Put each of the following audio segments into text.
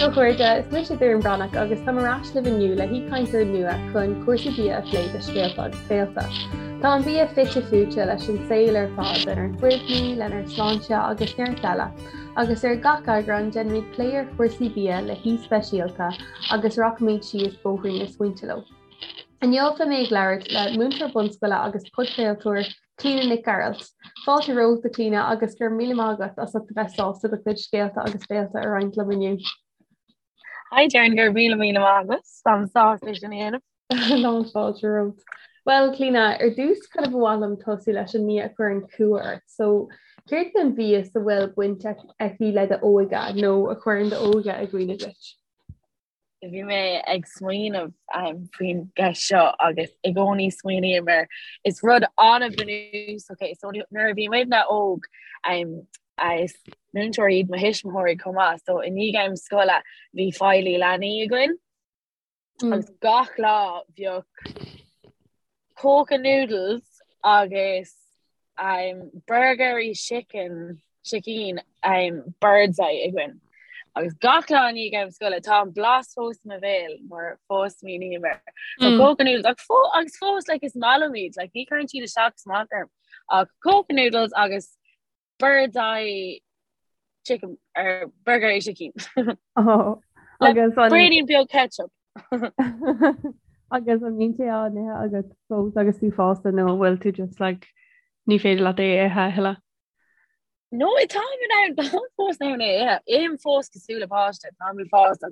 a chairde, is mise Doireann Breathnach agus táim ar ais libh inniu le haoichainteoir nua chun cúrsaí bia a phlé do Scéalta agus Béalta. Tá an bia fite fuaite leis an saol ar fad, lenár gcuimhní, lenár sláinte agus neart eile. Agus ar gach eagrán déanfaimid plé ar chúrsaí bia le haoi speisialta agus rachaimid síos bóithrín na smaointe leo. Inniu beidh mé ag labhairt le múinteoir bunscoile agus podchraoltóir Clíona Nic Gearailt. Fáilte romhat a Chlíona agus go raibh míle maith agat as ucht a bheith sásta do chuid scéalta agus béalta a roinnt liom inniu. Hi Doireann, go raibh míle míle maith agat. Táim sásta é sin a dhéanamh. Lán fáilte romhat. Bhuel Clíona, ar dtús kind of ba mhaith liom tosú leis an mbia a chuireann cumha ort. So céard é an mhias a bhfuil baint aici le d'óige nó a chuireann d'óige i gcuimhne duit? Bhí mé ag smaoineamh faoin gceist seo agus i gcónaí smaoiním air. Is rud an-bhunúsach é. So nuair a bhí muidne óg, is múinteoirí iad mo thuismitheoirí chomh maith, so i ndiaidh am scoile bhí feighlí leanaí againn agus gach lá bheadh Koka noodles agus burgairí sicín sicín Birds Eye againn. Agus gach lá i ndiaidh am scoile tá an blas fós i mo bhéal mar fós smaoiním air. So Koka noodles ach fó agus fós like is maith liom iad like ní chuireann siad isteach is amach orm ach Koka noodles agus Birds Eye chicken or burgairí sicín. Oh, agus an braoinín beag ketchup. Agus an mbíonn sé á n-ithe agat fós agus tú fásta nó an bhfuil tú just like ní féidir leat é a ithe a thuilleadh? No, táim in ann táim fós in ann é a ithe. Ithim fós cosúil le páiste, táim fásta.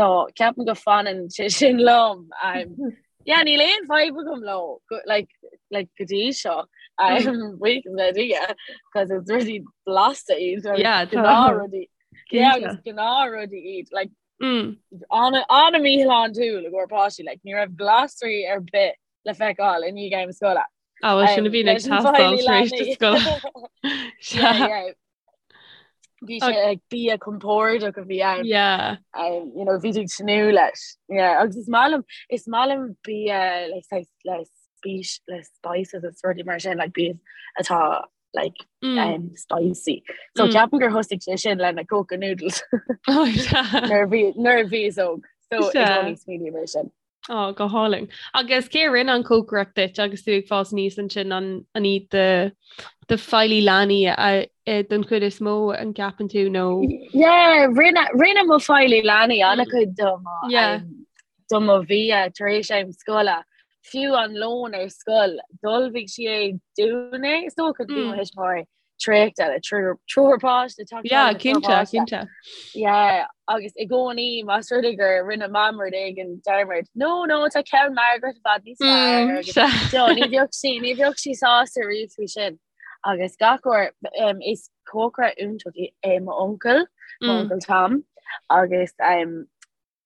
So ceapaim go fanann sé sin liom. Um, Yeah, níl aon fadhb agam leo go, like, like, go dtí seo. Um, buíochas le Dia, cos is rudaí blasta iad, agus Yeah, tá. gnáthrudaí. Yeah, Cinnte. agus gnáthrudaí iad. Like, Mm. ana, ana-mhíshláintiúil i gcomhair páistí, like, ní raibh glasraí ar bith le feiceáil i ndiaidh am scoile. Ah, well, sin a Um, bhíonn ag leis an teastáil bhfeighlí tar éis do leanaí. scoile. Yeah, Sea. yeah. Bhí sé like bia compordach a bhí ann. Yeah. Um, you know, bhí tú ag tnúth leis. Yeah, agus is maith liom is maith liom bia like saghas le spís le spices is rudaí mar sin like bia atá like Mm. um, spicy. So Mm. ceapaim gur thosaigh sé sin le na Koka noodles Oh, sea. nuair a bhí nuair a bhíos óg. So i Sea. gcónaí smaoiním air sin. Ó, go hálainn. Agus cé a rinne an cócaireacht duit agus tú ag fás aníos ansin an an iad do do feighlí leanaí don chuid is mó an gceapann tú nó? Yeah, rinne rinne mo feighlí leanaí an-chuid do mo Yeah. um, do mo bhia tar éis am scoile. Fiú an lón ar scoil, d'ullmhaigh sí é dúinn é, is dócha bhí mo Mm. thuismitheoirí traochta le triúr páiste teacht Yeah, le triúr cinnte, páiste. cinnte. Yeah, agus i gcónaí más rud é gur rinne mam rud éigin dearmad. No, no, tá ceann Margaret i bhfad níos fearr Mm, agus sea. no, ní bheadh sí, ní bheadh sí sásta riamh faoi sin. Agus gach uair um, is cócaire iontach é é mo uncail, mo Mm. uncail Tom, agus um,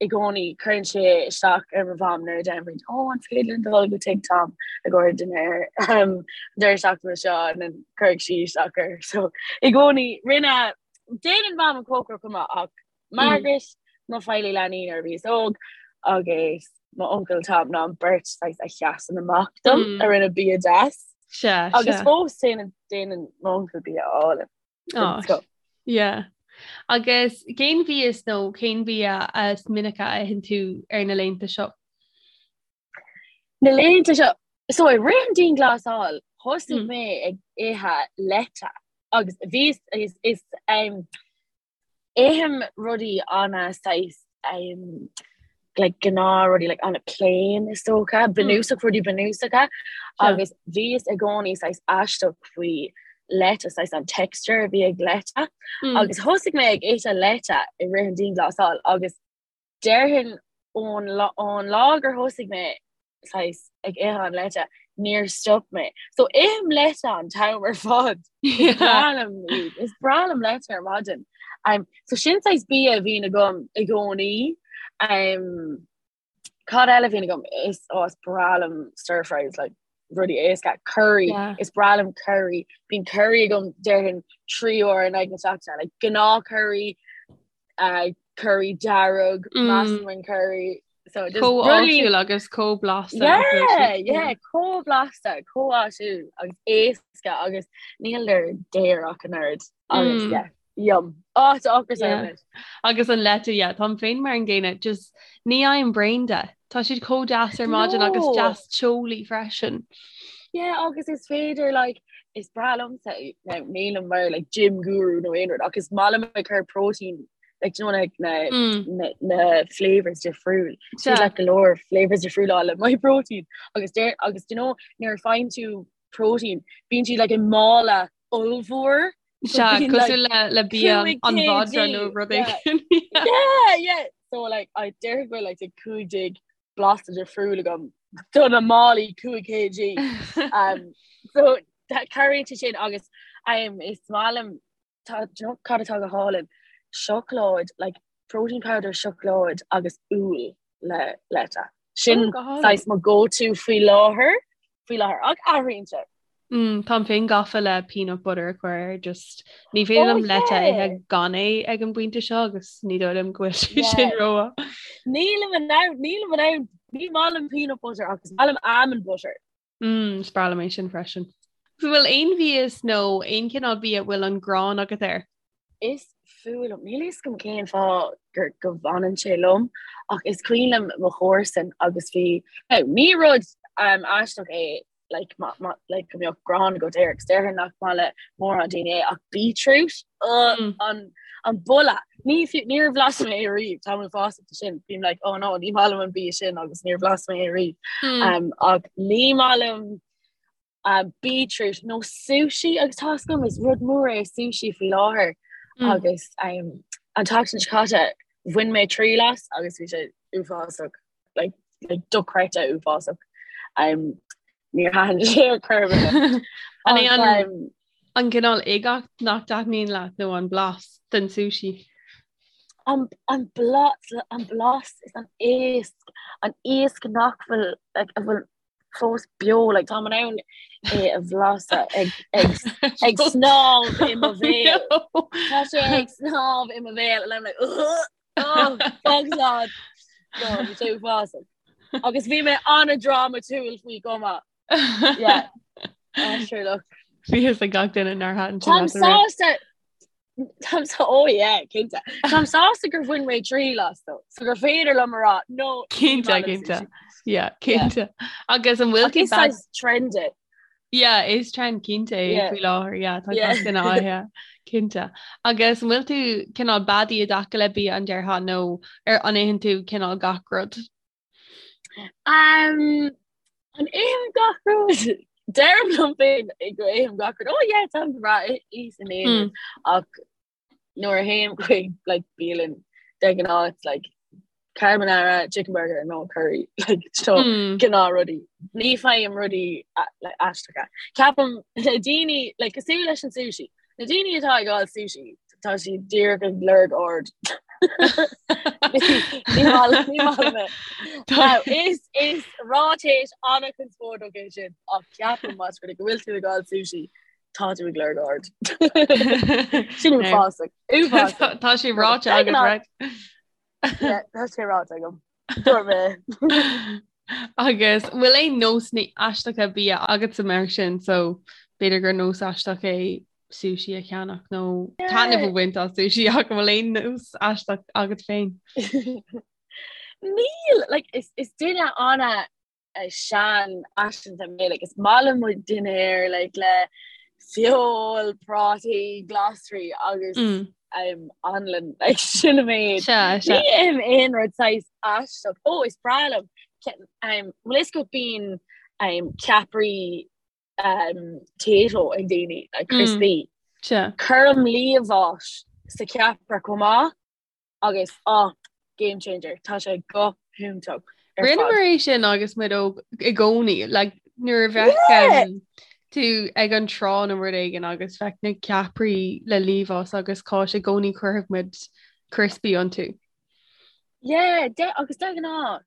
i gcónaí cuireann sé isteach ar mo mham nuair a deirim ó an féidir linn dul go tigh Tom i gcomhair dinnéar um, deireadh seachtaine seo and then cuirfidh sí isteach air. So i gcónaí rinne déanann mam an cócaireacht chomh maith ach Margaret mo feighlí leanaí nuair a bhíos óg agus mo uncail Tom ná an beirt saghas a sheasann amach dom Mm. a rinne bia deas. Sea, Agus sea. fós déanann déanann mo uncail bia álainn. Oh, yeah. Agus cén mhias nó cén bia is minice a itheann tú ar na laethanta seo? Na laethanta seo, so i rith an dianghlasáil, thosaigh Mm. mé ag ithe leite agus bhí is is um, ithim rudaí ana saghas um, like gnáth rudaí like ana plain is dócha, bunúsach rudaí bunúsacha agus bhíos i gcónaí saghas aisteach faoi leite saghas an texture a bhí ag leite Mm. agus thosaigh mé ag ithe leite i rith an dianghlasáil agus déarfainn ón lá ón lá gur thosaigh mé saghas ag ithe an leite níor stop mé. So ithim leite an t-am ar fad. Is breá liom iad. Is breá liom leite ar maidin. Um, so sin saghas bia a bhíonn agam i gcónaí. Um, cad eile a bhíonn agam is oh, is breá liom stir fries like rudaí éasca curry Yeah. is breá liom curry bíonn curry agam déarfainn 3 uair in aghaidh na seachtaine like gnáth curry uh, curry dearg Mm. massaman curry so just Chomh rudaí áisiúil agus chomh blasta. Yeah, yeah, chomh blasta, chomh áisiúil agus éasca agus níl daor ach an oiread agus Mm. yeah. Yum. Á, tá ocras orm anois. Agus an leite, yeah, táim féin mar an gcéanna, just ní fhaighim braon de. Tá siad chomh deas ar maidin agus deas teolaí freisin. Yeah, agus is féidir like, is breá liomsa, now nílim mar like gym guru nó aon rud, ach is maith liom ag cur protein like, do you know, like, na, mm. na, na flavors difriúil. Yeah. Like, go leor flavors difriúla le Myprotein. Agus deir, agus do you know, nuair a faigheann tú protein, bíonn siad like i mála ollmhór. Sea, cosúil le le bia an mhadra nó rud éigin. Yeah, yeah. So like I déarfainn go bhfuil like 15 blasta difriúil agam do na málaí 5 kg. Um, so cabhraíonn sé sin agus um, is maith liom tá do you know cad atá go hálainn? Seacláid, like protein powder seacláid agus úll le leite. Sin oh, saghas mo go-to faoi láthair, faoi láthair ach athraíonn sé. Mm, táim féin gafa le peanut butter a chur air, just ní féidir liom oh, leite a ithe gan é ag an bpointe seo agus ní dóigh liom go bhfuil sé sin ró. Nílim in ann, nílim in ann, ní maith liom peanut butter agus maith liom almond butter. Mm, is breá liom é sin freisin. So bhfuil aon mhias nó aon chineál bia a bhfuil an ghráin agat air? Is fuath liom, níl a fhios agam cén fáth gur go bhfanann sé liom, ach is cuimhin liom mo chomharsan agus bhí, now ní rud um, aisteach é like, ma, ma, like, go mbeadh gráin agat air, agus déarfainn nach maith le mórán daoine é, ach beetroot, uh, mm. an, an boladh, ní fiú, níor bhlas mé é riamh, táim uafásach de sin, bím like, oh no, ní maith liom an bia sin agus níor bhlas mé é riamh. Mm. Um, ach ní maith liom um, beetroot nó sushi agus tá a fhios agam is rud mór é sushi faoi láthair mm. agus um, an tseachtain seo caite bhain mé triail as agus bhí sé uafásach like, like dochreidte uafásach. Um, níor thaitin sé ar chor ar bith. An é an, um, an cineál uigeacht nach dtaitníonn leat nó an blas den sushi? An, an blas, an blas is an iasc, an iasc nach bhfuil like, a bhfuil fós beo, like, táim in ann é a bhlaiseadh ag, ag, ag snámh i mo bhéal. Tá sé ag snámh i mo bhéal and I'm like, Ugh! Oh, fág slán. No, bhí sé uafásach. Agus bhí mé an-drámatúil faoi chomh maith. Yeah. Ah, sure look. Bhí fhios ag gach duine nár thaitin sé Táim leat an rud. sásta Táim sa oh yeah, cinnte. Táim sásta gur bhain mé triail as though, so gur féidir liom a rá no ní Cinnte, maith liom cinnte. sushi. Yeah, cinnte. Agus an bhfuil Ach tú is bad saghas trend é. Yeah, is trend cinnte é Yeah. faoi láthair, yeah, tá Yeah. gach duine á ithe, cinnte. Agus an bhfuil tú cineál beadaí i dtaca le bia an déarfá nó ar an itheann tú cineál gach rud? Um, an ithim gach rud? Deirim liom féin go ithim gach rud. Oh yeah, táim breá is in aon rud. Ach nuair a théim chuig like bialann de ghnáth it's like carbonara, chicken burger nó curry like so mm. gnáth rudaí. Ní fhaighim rudaí like, aisteacha. Ceapaim na daoine like cosúil leis an sushi. Na daoine atá ag fáil sushi tá siad díreach ag lorg aird. Is is ráiteas an-chonspóideach é sin ach ceapaim más rud é go bhfuil tú ag fáil sushi Tá tú ag lorg aird. Sin uafásach. Uafásach. Tá sé ráite agat, right? Yeah, tá sé ráite agam. Dúirt mé. Agus bhfuil aon nósanna aisteacha bia agatsa mar sin, so b'fhéidir gur nós aisteach é sushi a cheannach nó taitneamh a bhaint as sushi ach an bhfuil aon nós aisteach agat féin? Níl, like, is, is duine ana seanfhaiseanta mé like is maith liom mo dhinnéar like le feoil, prátaí, glasraí agus mm. um, anlann like sin an méid. Ní ithim aon rud saghas aisteach. Ó is breá liom um, bhfuil fhios agat bíonn um, ceapairí um, Tayto ag daoine like crispy. Mm. Cuirim liamhás sa cheapaire chomh maith. Agus ah, game changer, tá sé go hiontach ar fad. Rinneamar é sin agus muid óg i gcónaí, like, nuair a bheadh Yeah! um, tú ag an trá nó rud éigin agus bheadh na ceapairí le liamhás agus cáis i gcónaí chuirfeadh muid crispy iontu. Yeah, de, agus de ghnáth,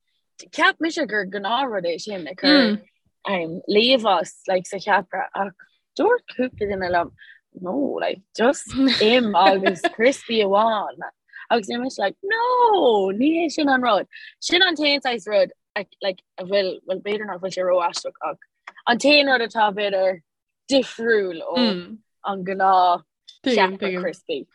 Cheap mise gur gnáthrud é sin ag cur um, liamhás like, sa cheapaire ach dúirt cúpla duine liom no like, just im agus crispy amháin agus bhí mise like no ní hé sin an rud. Sin an t-aon saghas rud like, a bhfuil well b'fhéidir nach bhfuil sé ró-aisteach ach an t-aon rud atá b'fhéidir difriúil ó mm. an gnáth Tuigim, tuigim. crispy.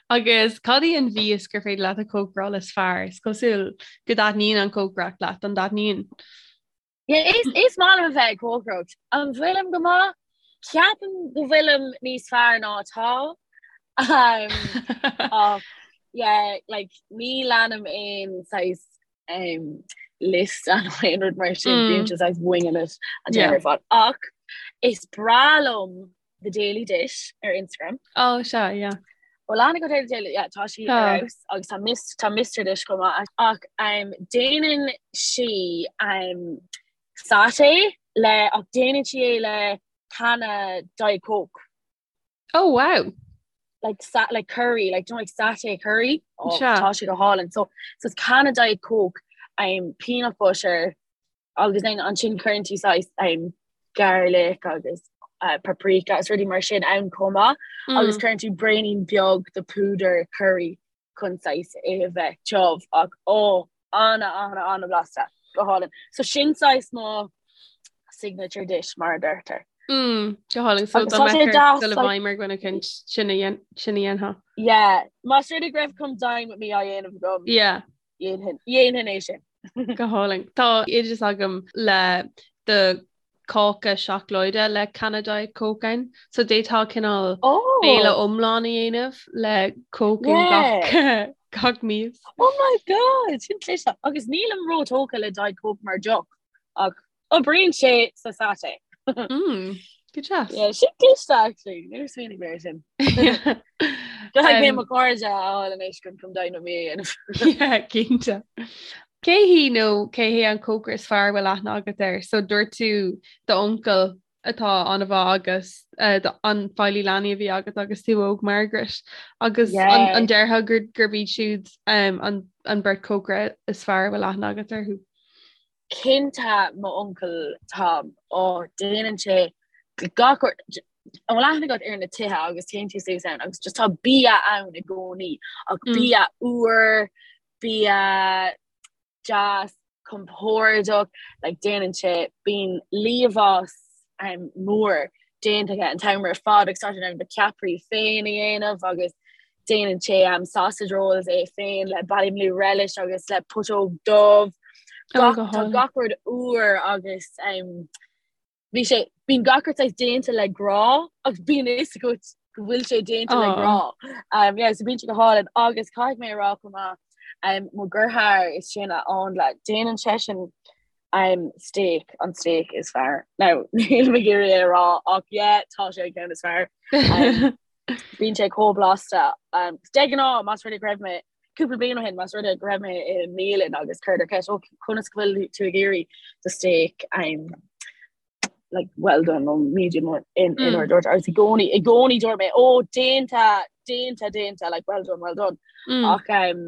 Agus cad í an mhias gur féidir leat a chócaráil is fearr? Is cosúil go dtaitníonn an chócaireacht leat, an dtaitníonn? Yeah, is, is maith liom a bheith ag cócaireacht. An bhfuilim go maith? Ceapaim go bhfuilim níos fearr ná atá. Um, ach, yeah, like, ní leanaim aon saghas um, liosta nó aon rud mar sin, mm. bím just saghas winging it an t-am ar fad. Ach is breá liom The Daily Dish ar Instagram. Oh, sea, yeah. Bhfuil aithne agat ar The Daily, yeah, tá sí ar fheabhas agus tá Mis tá Mr Dish chomh maith ach um, déanann sí um, satay le ach déanann sí é le canna Diet Coke. Oh wow. Like sa like curry, like you know, like satay curry. Oh, tá sé go hálainn. So so it's canna Diet Coke, um, peanut butter, agus then ansin cuireann tú saghas um, garlic agus uh, paprika is rudaí mar sin ann chomh maith mm. agus cuireann tú braoinín beag de púdar curry chun saghas é a bheith tiubh ach ó ana ana ana blasta go hálainn. So sin saghas mo signature dish mar a deirtear. Mm, go hálainn so dá mbeadh ort dul i bhfeidhm ar dhuine éicint sin a dhéanfá. Yeah, más rud é go raibh come dine with me á dhéanamh agam. Yeah. Dhéanfainn é sin. Go hálainn. Tá oideas agam le do cáca seacláide le canna Diet Coke ann. So d'fhéadfá cineál oh. béile iomlán a dhéanamh le Coke in gach gach mias. Oh my god, sin cliste. Agus nílim róthógtha le Diet Coke mar deoch ach Oibríonn sé sa satay. Mm, go deas. Yeah, sin cliste actually. Níor smaoinigh mé air sin. Caithfidh mé mo chairde a fháil anois chun come dine with me a dhéanamh. Yeah, cinnte. Cé hí nó cé hé an cócaire is fearr a bhfuil aithne agat air? So dúirt tú d'uncail atá an-mhaith agus uh, an feighlí leanaí a bhí agat agus tú óg Margaret agus yeah. an, an déarfá gur gurb iad siúd um, an, an beirt cócaire is fearr a bhfuil aithne agat orthu? Cinnte mo uncail Tom, ó déanann sé gach rud, an bhfuil aithne agat ar na tithe agus téann tú suas ann agus just tá bia ann i gcónaí ach mm. bia úr, bia deas, compordach, like déanann sé bíonn liamhás um, mór déanta aige an t-am ar fad agus tá sé in ann na ceapairí féin a dhéanamh agus déanann sé um, sausage rolls é féin le Ballymaloe relish agus le putóg dubh. Gach, tá gach rud úr agus um, bhí sé bíonn gach rud saghas déanta le grá agus bíonn fhios agat go bhfuil sé déanta le grá. Um, yeah, so bíonn sé go hálainn agus caithfidh mé a rá chomh maith um, mo dheartháir is sine Áindle déanann seisean um, steak an steak is fearr. Now níl mé ag iarraidh é a rá ach yeah, tá sé an ceann is fearr. Um, Bíonn sé chomh blasta. Um, de ghnáth más rud é go raibh mé cúpla bliain ó shin más rud é go raibh mé i mbialann agus cuireadar ceist ó conas go bhfuil tú ag iarraidh do steak um, like well done nó medium in in mm. dúirt agus i gcónaí i gcónaí dúirt mé ó déanta déanta déanta like well done well done mm. ach um,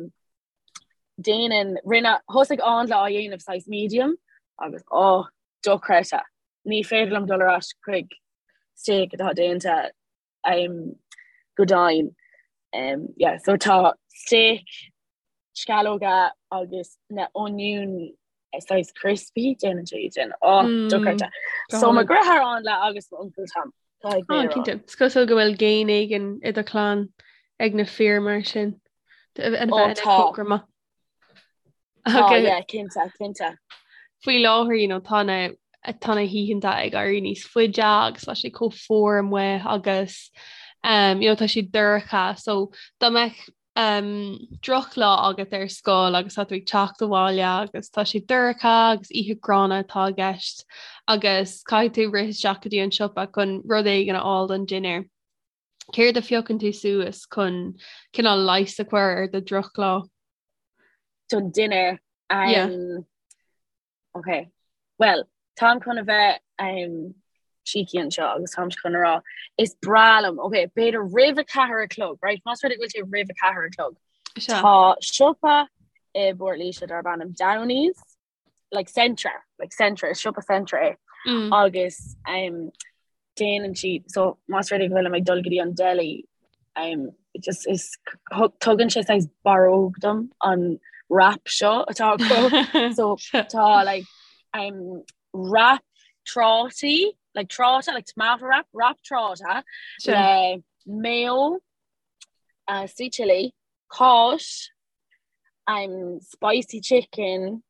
déanann rinne thosaigh Áindle á dhéanamh saghas medium agus ó dochreidte ní féidir liom dul ar ais chuig steak atá déanta um, go dian. Um, yeah, so tá steak, sceallóga agus na oinniúin saghas crispy déanann sé iad sin. Ó, mm, dochreidte. So mo dheartháir Áindle agus mo uncail Tom. Oh, cinnte. Is cosúil go bhfuil géin éigin i do chlann ag na fir mar sin. A bheith ina cócaire maith. Oh, yeah, cinnte, cinnte. Faoi láthair, you know, tá na tá na hoícheanta ag éirí níos faide agus tá sé chomh fuar amuigh agus um, you know, tá sé dorcha, so dá mbeadh um, drochlá agat ar scoil agus tá tú ag teacht abhaile agus tá sé dorcha agus oíche gránna atá i gceist agus caithfidh tú rith isteach go dtí an siopa chun rud éigin a fháil don dinnéar. Céard a phiocann tú suas chun cineál leigheas a chur ar do dhrochlá? Don dinnéar. Um, yeah. Ok. Well, táim chun a bheith um, cheeky anseo agus táim chun a rá is breá liom, ok, b'fhéidir roimh a ceathair a chlog, right? Más rud é go bhfuil sé roimh a ceathair a chlog. Tá siopa i bPort Laoise darb ainm Downey's, like Centra, like Centra, is siopa Centra é. Mm. Agus um, déanann siad so más rud é go bhfuilim ag dul go dtí an deli um, just is tugann sé saghas barróg dom an wrap seo atá acu so tá like um, wrap trátaí like tráta like tomato wrap wrap tráta le mayo, uh, sweet chili, cáis, um, spicy chicken,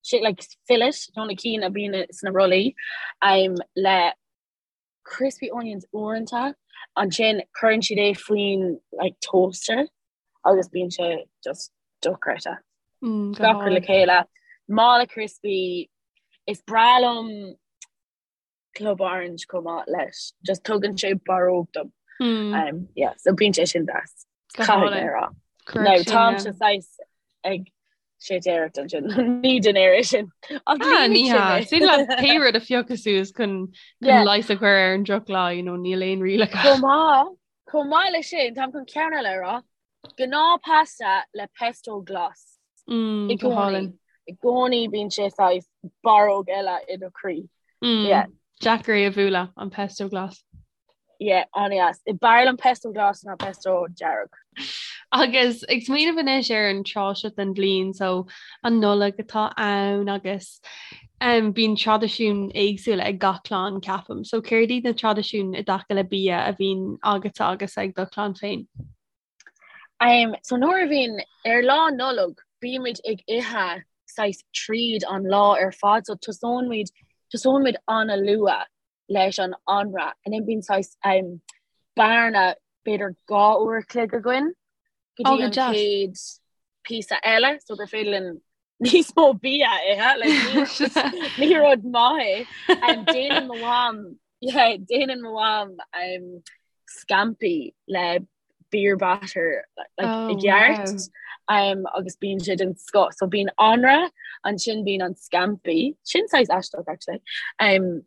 shit like fillet, nó na cinn a bhíonn sna rollaí, um, le crispy onions uaireanta, ansin cuireann siad é faoin like toaster agus bíonn sé just dochreidte. Mm, go Gach rud le hálainn. chéile. Mála crispy, is breá liom Club Orange chomh maith leis. Just tugann sé barróg dom. Mm. Um, yeah, so bíonn sé sin deas. Go Caithfidh mé hálainn. a rá. Cuirfidh Now sin, táimse yeah. saghas ag séitéireacht ansin. Ní dinnéar é sin. Ach Ah, líonfaidh ní sé hea. mé. Is féidir leat pé rud a phiocadh suas chun chun Yeah. leigheas a chur ar an drochlá, you know, níl aon rialacha. Chomh maith, chomh maith leis sin, táim chun ceann eile a rá. Gnáth pasta le pesto glas. Mm, I go gcónaí. hálainn. I gcónaí bíonn sé saghas barróg eile i do chroí. Mm, Yeah. Deacair é a bhualadh, an pesto glas. Yeah, an-deas. B'fhearr liom pesto glas ná pesto dearg. Agus ag smaoineamh anois ar an tráth seo den bhliain, so an Nollaig atá ann agus um, bíonn traidisiúin éagsúla ag gach clann, ceapaim. So céard iad na traidisiúin i dtaca le bia a bhíonn agatsa agus ag do chlann féin? Um, so nuair a bhíonn ar lá Nollag, bímid ag ithe saghas tríd an lá ar fad, so tosóimid tosóimid an-luath leis an anraith and then bíonn saghas um, bearna b'fhéidir 2 uair a chloig againn go Oh, dtí go an deas. chéad píosa eile so gur féidir linn níos mó bia a ithe like, ní, ní rud maith é. Um, déanann mo mham yeah, déanann mo mham um, scampi le beer batter like, Oh, i gceart wow. um, agus bíonn sé den scoth. So bíonn anraith, ansin bíonn an scampi, sin saghas aisteach actually. Um,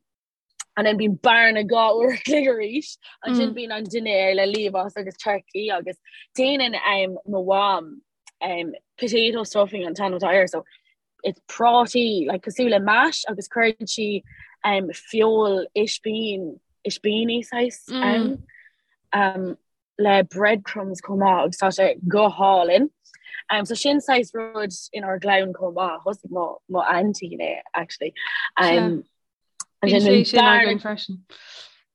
and then bíonn bearna 2 uair a chloig arís, ansin Mm. bíonn an dinnéar le liamhás agus turkey agus déanann um, mo mham um, potato stuffing an t-ainm atá air, so it's prátaí like, cosúil le mash agus cuireann sí um, feoil ispín ispíní saghas Mm. um, um, le breadcrumbs chomh maith agus tá sé go hálainn. Um, so sin saghas rud inár gclann chomh maith, thosaigh mo, mo aintín é actually. Um, Bíonn ansin sé bíonn sin bearna- againn freisin.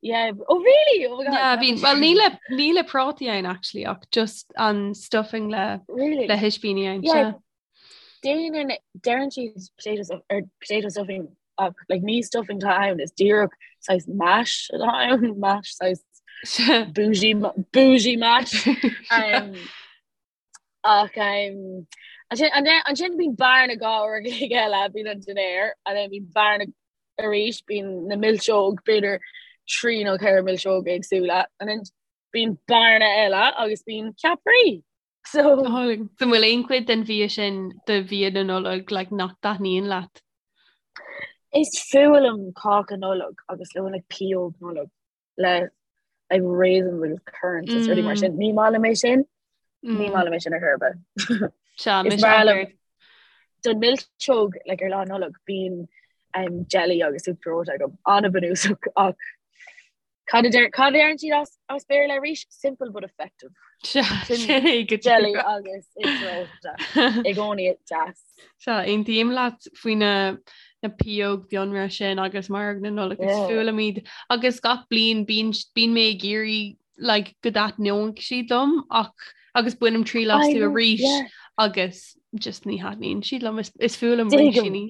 Yeah, oh really? Oh my God. Yeah, bíonn, well ní le ní le prátaí ann actually ach just an stuffing le Really? le hispíní ann. Yeah. Yeah. Déanann deireann siad potato stuff or potato stuffing ach like ní stuffing atá ann is díreach saghas mash atá ann mash saghas bougie bougie mash um, ach um, ansin ansin bíonn bearna 2 uair a chloig eile bíonn an dinnéar and then bíonn bearna arís bíonn na milseog b'fhéidir 3 nó 4 milseog éagsúla and then bíonn bearna eile agus bíonn ceapairí. So an bhfuil aon chuid den bhia sin de bhia na Nollag like, nach dtaitníonn leat? Is fuath liom cáca Nollag agus le like, pióg Nollag le like, raisins agus currants is rudaí mar mm. sin. Ní maith liom é sin ní mm. maith liom é sin ar chor ar bith. Is breá liom don milseog like, ar lá Nollag bíonn um, jelly agus uachtar reoite agam an-bhunúsach ach Cad a deir cad a deireann siad as as Béarla arís? Simple but effective. Sin é go Jelly agus uachtar reoite i gcónaí deas. Sea, aontaím leat faoi na na pióg bhiorra sin agus maróg na Nollag is fuath liom iad. Agus gach bliain bíonn bíonn mé ag iarraidh like, go dtaitneoidh siad liom ach agus bainim triail astu arís agus just ní thaitníonn siad liom is is fuath liom rísíní.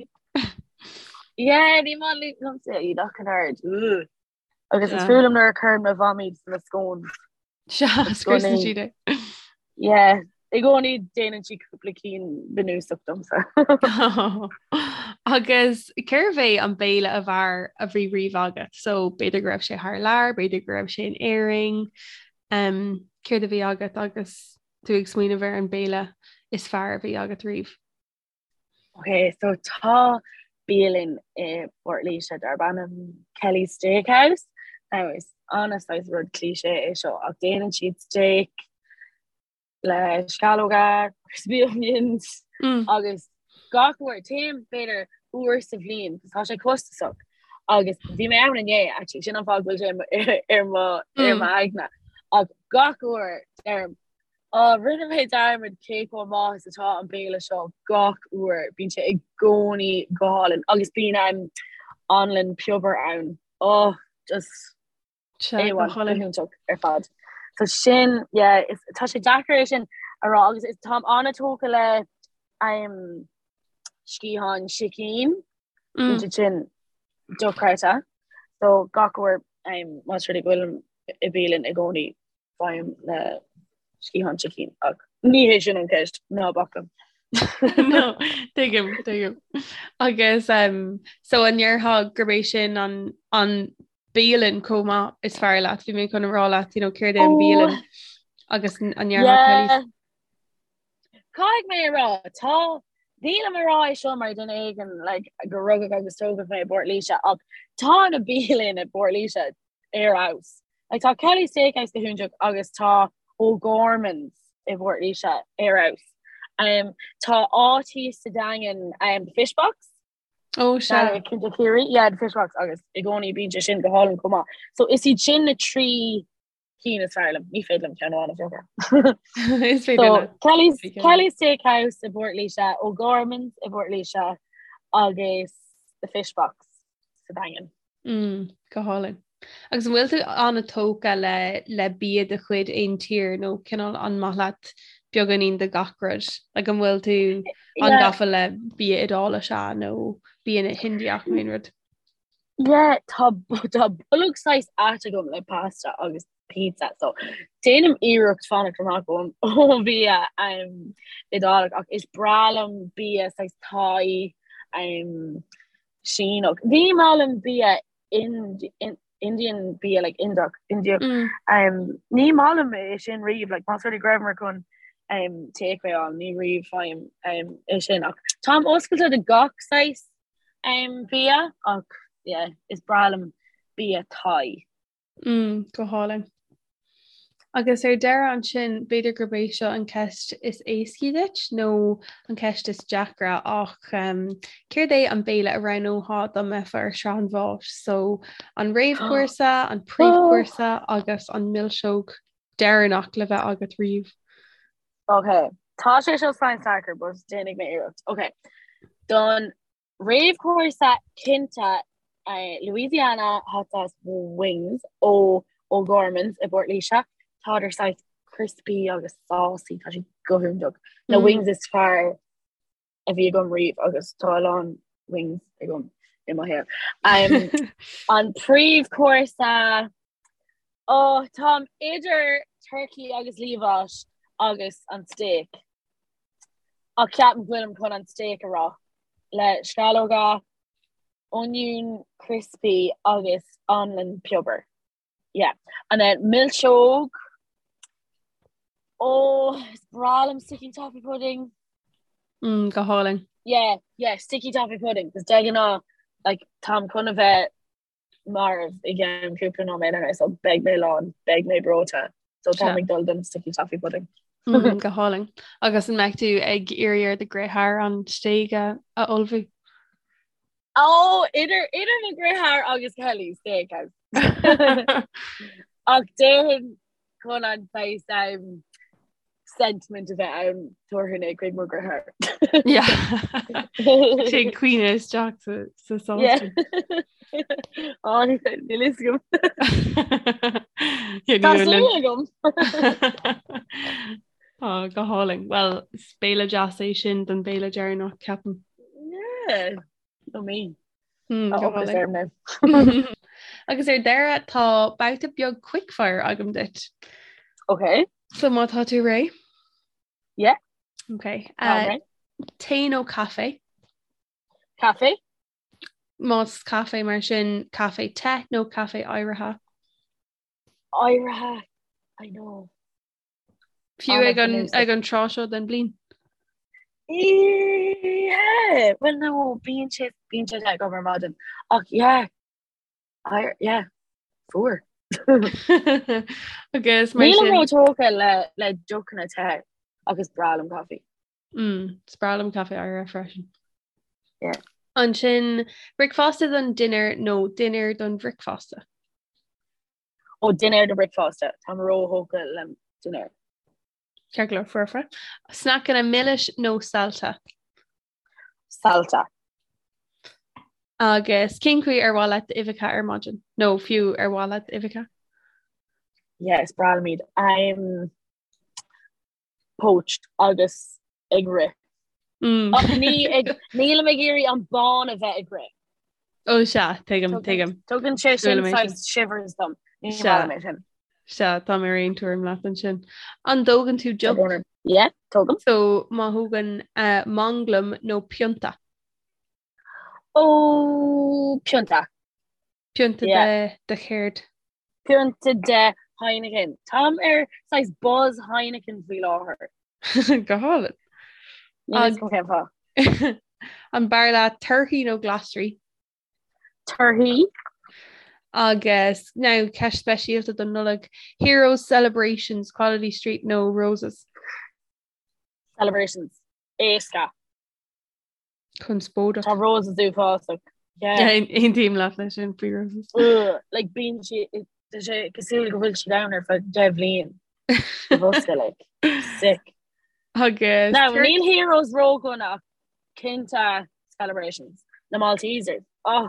Yeah, ní maith liomsa iad ach an oiread. Agus is fuath liom nuair a chuireann mo mham iad sna scones. Sea, scriosann siad é. Yeah, i gcónaí déanann sí cúpla cinn bunúsach domsa. Agus cérbh é an béile ab fhearr a bhí riamh agat? So b'fhéidir go raibh sé thar lear, b'fhéidir go raibh sé in Éirinn. Um, céard a bhí agat agus tú ag smaoineamh ar an béile is fearr a bhí agat riamh? Ok, so tá bialann i bPort Laoise darb ainm Kelly's Steakhouse. Now is an-saghas rud cliché é seo ach déanann siad steak le sceallóga, crispy onions Mm. agus gach uair téim b'fhéidir uair sa bhliain 'cause tá sé costasach agus bhí mé ann inné actually sin an fáth go bhfuil sé ar mo ar Mm. m'aigne ach gach uair deirim Á, rinne mé dearmad cé chomh maith is atá an béile seo gach uair. Bíonn sé i gcónaí go hálainn agus bíonn an anlann piobair ann. Oh, just Sea, go A1, go hálainn. hiontach ar fad. So sin, yeah, is, tá sé deacair é sin a rá agus is táim an-tógtha le um, sciatháin sicín mm. siad sin dochreidte. So gach uair um, más rud é go bhfuilim i bialann i gcónaí faighim na sciatháin sicín ach ní hé sin an ceist ná bac liom. No, tuigim, tuigim. Agus um, so an ndéarfá gurb é sin an, an bialann chomh maith is fearr leat, bhí mé chun a rá leat, you know, céard é an bialann oh. agus an ndéarfá yeah. Caithfidh mé a rá, tá, nílim a rá é seo mar duine éigin like, go rugadh agus tógadh mé i bPort Laoise ach tá na bialanna i bPort Laoise ar fheabhas. Like, tá Kelly's Steakhouse go hiontach agus tá O'Gorman's i bPort Laoise ar fheabhas. Um, tá áit thíos sa Daingean um, The Fish Box. Ó sea. Cinnte Ciarraí, yeah, The Fish Box agus i gcónaí bíonn sé sin go hálainn chomh maith. So is iad sin na trí cinn is fearr liom. Ní féidir liom ceann amháin a phiocadh. Is féidir So leat. Kelly's, Is féidir leat. Kelly's Steakhouse i bPort Laoise, O'Gorman's i bPort Laoise agus The Fish Box sa Daingean. Mm, go hálainn. Agus an bhfuil tú an-tógtha le le bia de chuid aon tír nó cineál an maith leat beagáinín de gach rud? Like an bhfuil tú Yeah. an-gafa le bia Iodáilis nó bia na hIndiach nó aon rud? Yeah, tá tá bolg saghas ait agam le pasta agus pizza so déanaim iarracht fanacht amach ón ón bhia um, Iodálach ach is breá liom bia saghas Thai um, Síneach. Ní maith liom bia Indian bia like Indiach Indiach mm. um, ní maith liom é sin riamh like más rud é go rabhamar chun um, takeaway a fháil ní riamh faighim um, é sin ach táim oscailte do gach saghas um, bia ach yeah, is breá liom bia Thai. Mm, go hálainn. Agus ar deireadh ansin, b'fhéidir gurb é seo an ceist is éascaí duit nó an ceist is deacra ach um, céard é an béile a roghnófá dá mbeifeá ar shraith an bháis? So an réamhchúrsa, an príomhchúrsa agus an milseog deireanach le bheith agat riamh. Ok, tá sé seo saghas deacair, but déanfaidh mé iarracht. Ok, don Réamhchúrsa cinnte Louisiana hot sauce wings ó O'Gorman's i bPort Laoise. Tádar saghas crispy agus saucy, tá siad go hiontach. Na wings is fearr a bhí agam riamh agus tá a lán wings agam i mo shaol. An príomhchúrsa, oh, táim idir turkey agus liamhás agus an steak. Ach ceapaim go bhfuilim chun an steak a rá. Le sceallóga, oinniún crispy agus anlann piobair. Yeah. And then milseog. Oh, is breá liom sticky toffee pudding. Mm, go hálainn. Yeah, yeah, sticky toffee pudding. Cos de ghnáth, like, táim chun a bheith marbh i gceann cúpla nóiméad anois so beidh mé lán, beidh mé breoite. So táim ag dul don sticky toffee pudding. Mm, go hálainn. Agus an mbeidh tú ag iarraidh ar do dheartháir an stéig a a ullmhú? Ó, idir idir mo dheartháir agus Kelly Steakhouse. Ach déarfainn chun an saghas um, sentiment a bheith ann tabharfainn é chuig mo dheartháir. Sé caoineadh isteach sa sás. Á níl a fhios agam. Tá súil agam. Á go hálainn. Well is béile deas é sin don béile deireanach ceapaim. Yeah. Nó mé. Hmm, Tá go ocras hálainn. orm now. Agus ar deireadh tá babhta beag quickfire agam duit. Ok. So má tá tú réidh? Yeah. Ok. Tá Uh, réidh. tae nó caife? Caife? Más caife mar sin caife te nó caife oighrithe? Oighrithe. I know. Fiú ag an ag an tráth seo den bhliain. Yeah, well no, bíonn sé bíonn sé te agam ar maidin. Ach yeah, I, yeah, fuar. Agus mar Nílim sin ró-tógtha le le deochanna te agus breá liom caife. mm, is breá liom caife oighrithe freisin. Yeah. Ansin bricfeasta don dinnéar nó dinnéar don bhricfeasta. Ó dinnéar don bricfeasta, táim ró-thógtha le dinnéar. Ceart go leor, foirfe. Sneaiceanna milis nó saillte? Saillte. Agus cén chaoi ar mhaith leat d'uibheacha ar maidin? Nó fiú ar mhaith leat uibheacha? Yeah, is breá liom iad. I'm poached agus ag rith. Mm. Ach ní ag nílim ag iarraidh an bán a bheith ag rith. Ó sea, tuigim, tuigim. Tugann sé sin saghas shivers dom. Ní maith liom é sin. Sea, tá mé ar aon tuairim leat ansin. An dtógann tú deoch? Yeah, tógaim. So má thógann uh, manglam nó pionta? Ó, pionta. Pionta de de chéard? Pionta de Heineken. Táim ar saghas buzz Heineken faoi láthair. Go hálainn. Níl a fhios agam cén fáth. An b'fhearr leat torthaí nó glasraí? Torthaí. Agus now ceist speisialta don Nollaig, Heroes, Celebrations, Quality Street nó Roses? Celebrations. Éasca. Conspóideach. Tá Roses uafásach. Aontaím leat leis sin faoi Roses. Like bíonn sé tá sé cosúil go bhfuil siad ann ar feadh 10 bhliain. Sa bhosca like. Sick. Agus Now níl Heroes ródhona ach cinnte Celebrations. Na Maltesers. Oh.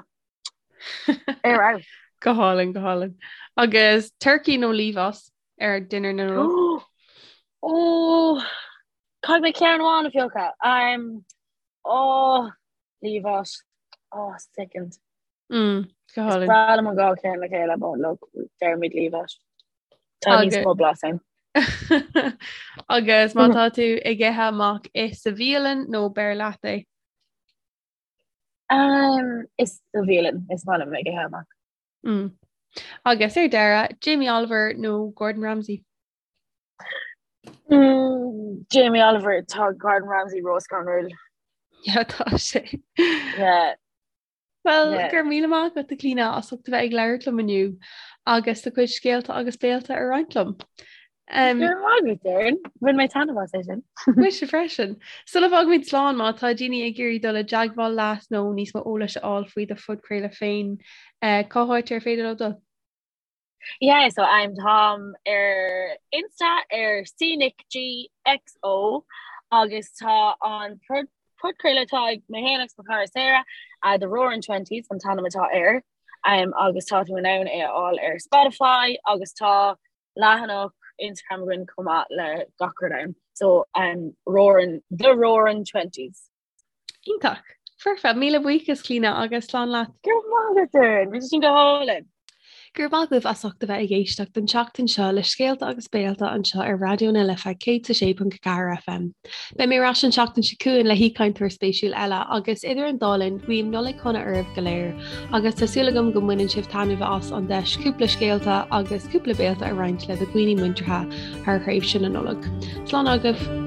Ar fheabhas. Go hálainn, go hálainn. Agus turkey nó liamhás ar dinnéar na Nollag? Ó, caithfidh mé ceann amháin a phiocadh. Um, ó, liamhás. Ó, second. Mm, go Is hálainn. breá liom an dhá cheann le chéile, but look, déarfaimid liamhás. Tá níos Agus mó blas ann. Agus má tá tú ag ithe amach ith sa bhialann nó beir leat é? Um, is sa bhialann, is maith liom ag ithe amach. Mm. Agus ar deireadh, Jamie Oliver nó Gordon Ramsay? Mm, Jamie Oliver, tá Gordon Ramsay róscanrúil. Yeah, tá sé. Yeah. Well, Yeah. go raibh míle maith agat a Clíona as ucht a bheith ag labhairt liom inniu agus do chuid scéalta agus béalta a roinnt liom. Um, Go raibh maith agat, Erin. Bhain mé taitneamh as é sin. Mise freisin. Sula bhfágaimid slán má tá daoine ag iarraidh dul i dteagmháil leat nó níos mó eolais a fháil faoi do phodchraoladh féin, eh, cá háit ar féidir leo dul? Yeah, so I'm táim ar Insta ar CNicGXO agus tá an podchraoladh atá ag mé féin agus mo chara Sarah, uh, The Roaring Twenties an t-ainm atá air, um, agus tá tú in ann é a fháil ar Spotify agus tá leathanach Instagram againn chomh maith le gach rud ann. So um, Roaring, The Roaring Twenties. Iontach. Foirfe. Míle buíochas, Clíona, agus slán leat. Go raibh maith agat, Erin. Bhí sé sin go hálainn. Go raibh maith agaibh as ucht a bheith ag éisteacht an tseachtain seo le Scéalta agus Béalta anseo ar Raidió na Life 106.4 FM. Beidh mé ar ais an tseachtain seo chugainn le haoichainteoir spéisiúil eile agus idir an dá linn guím Nollaig shona oraibh go léir agus tá súil agam go mbaineann sibh taitneamh as an deis cúpla scéalta agus cúpla béalta a roinnt le do dhaoine muinteartha thar thréimhse na Nollag. Slán agaibh!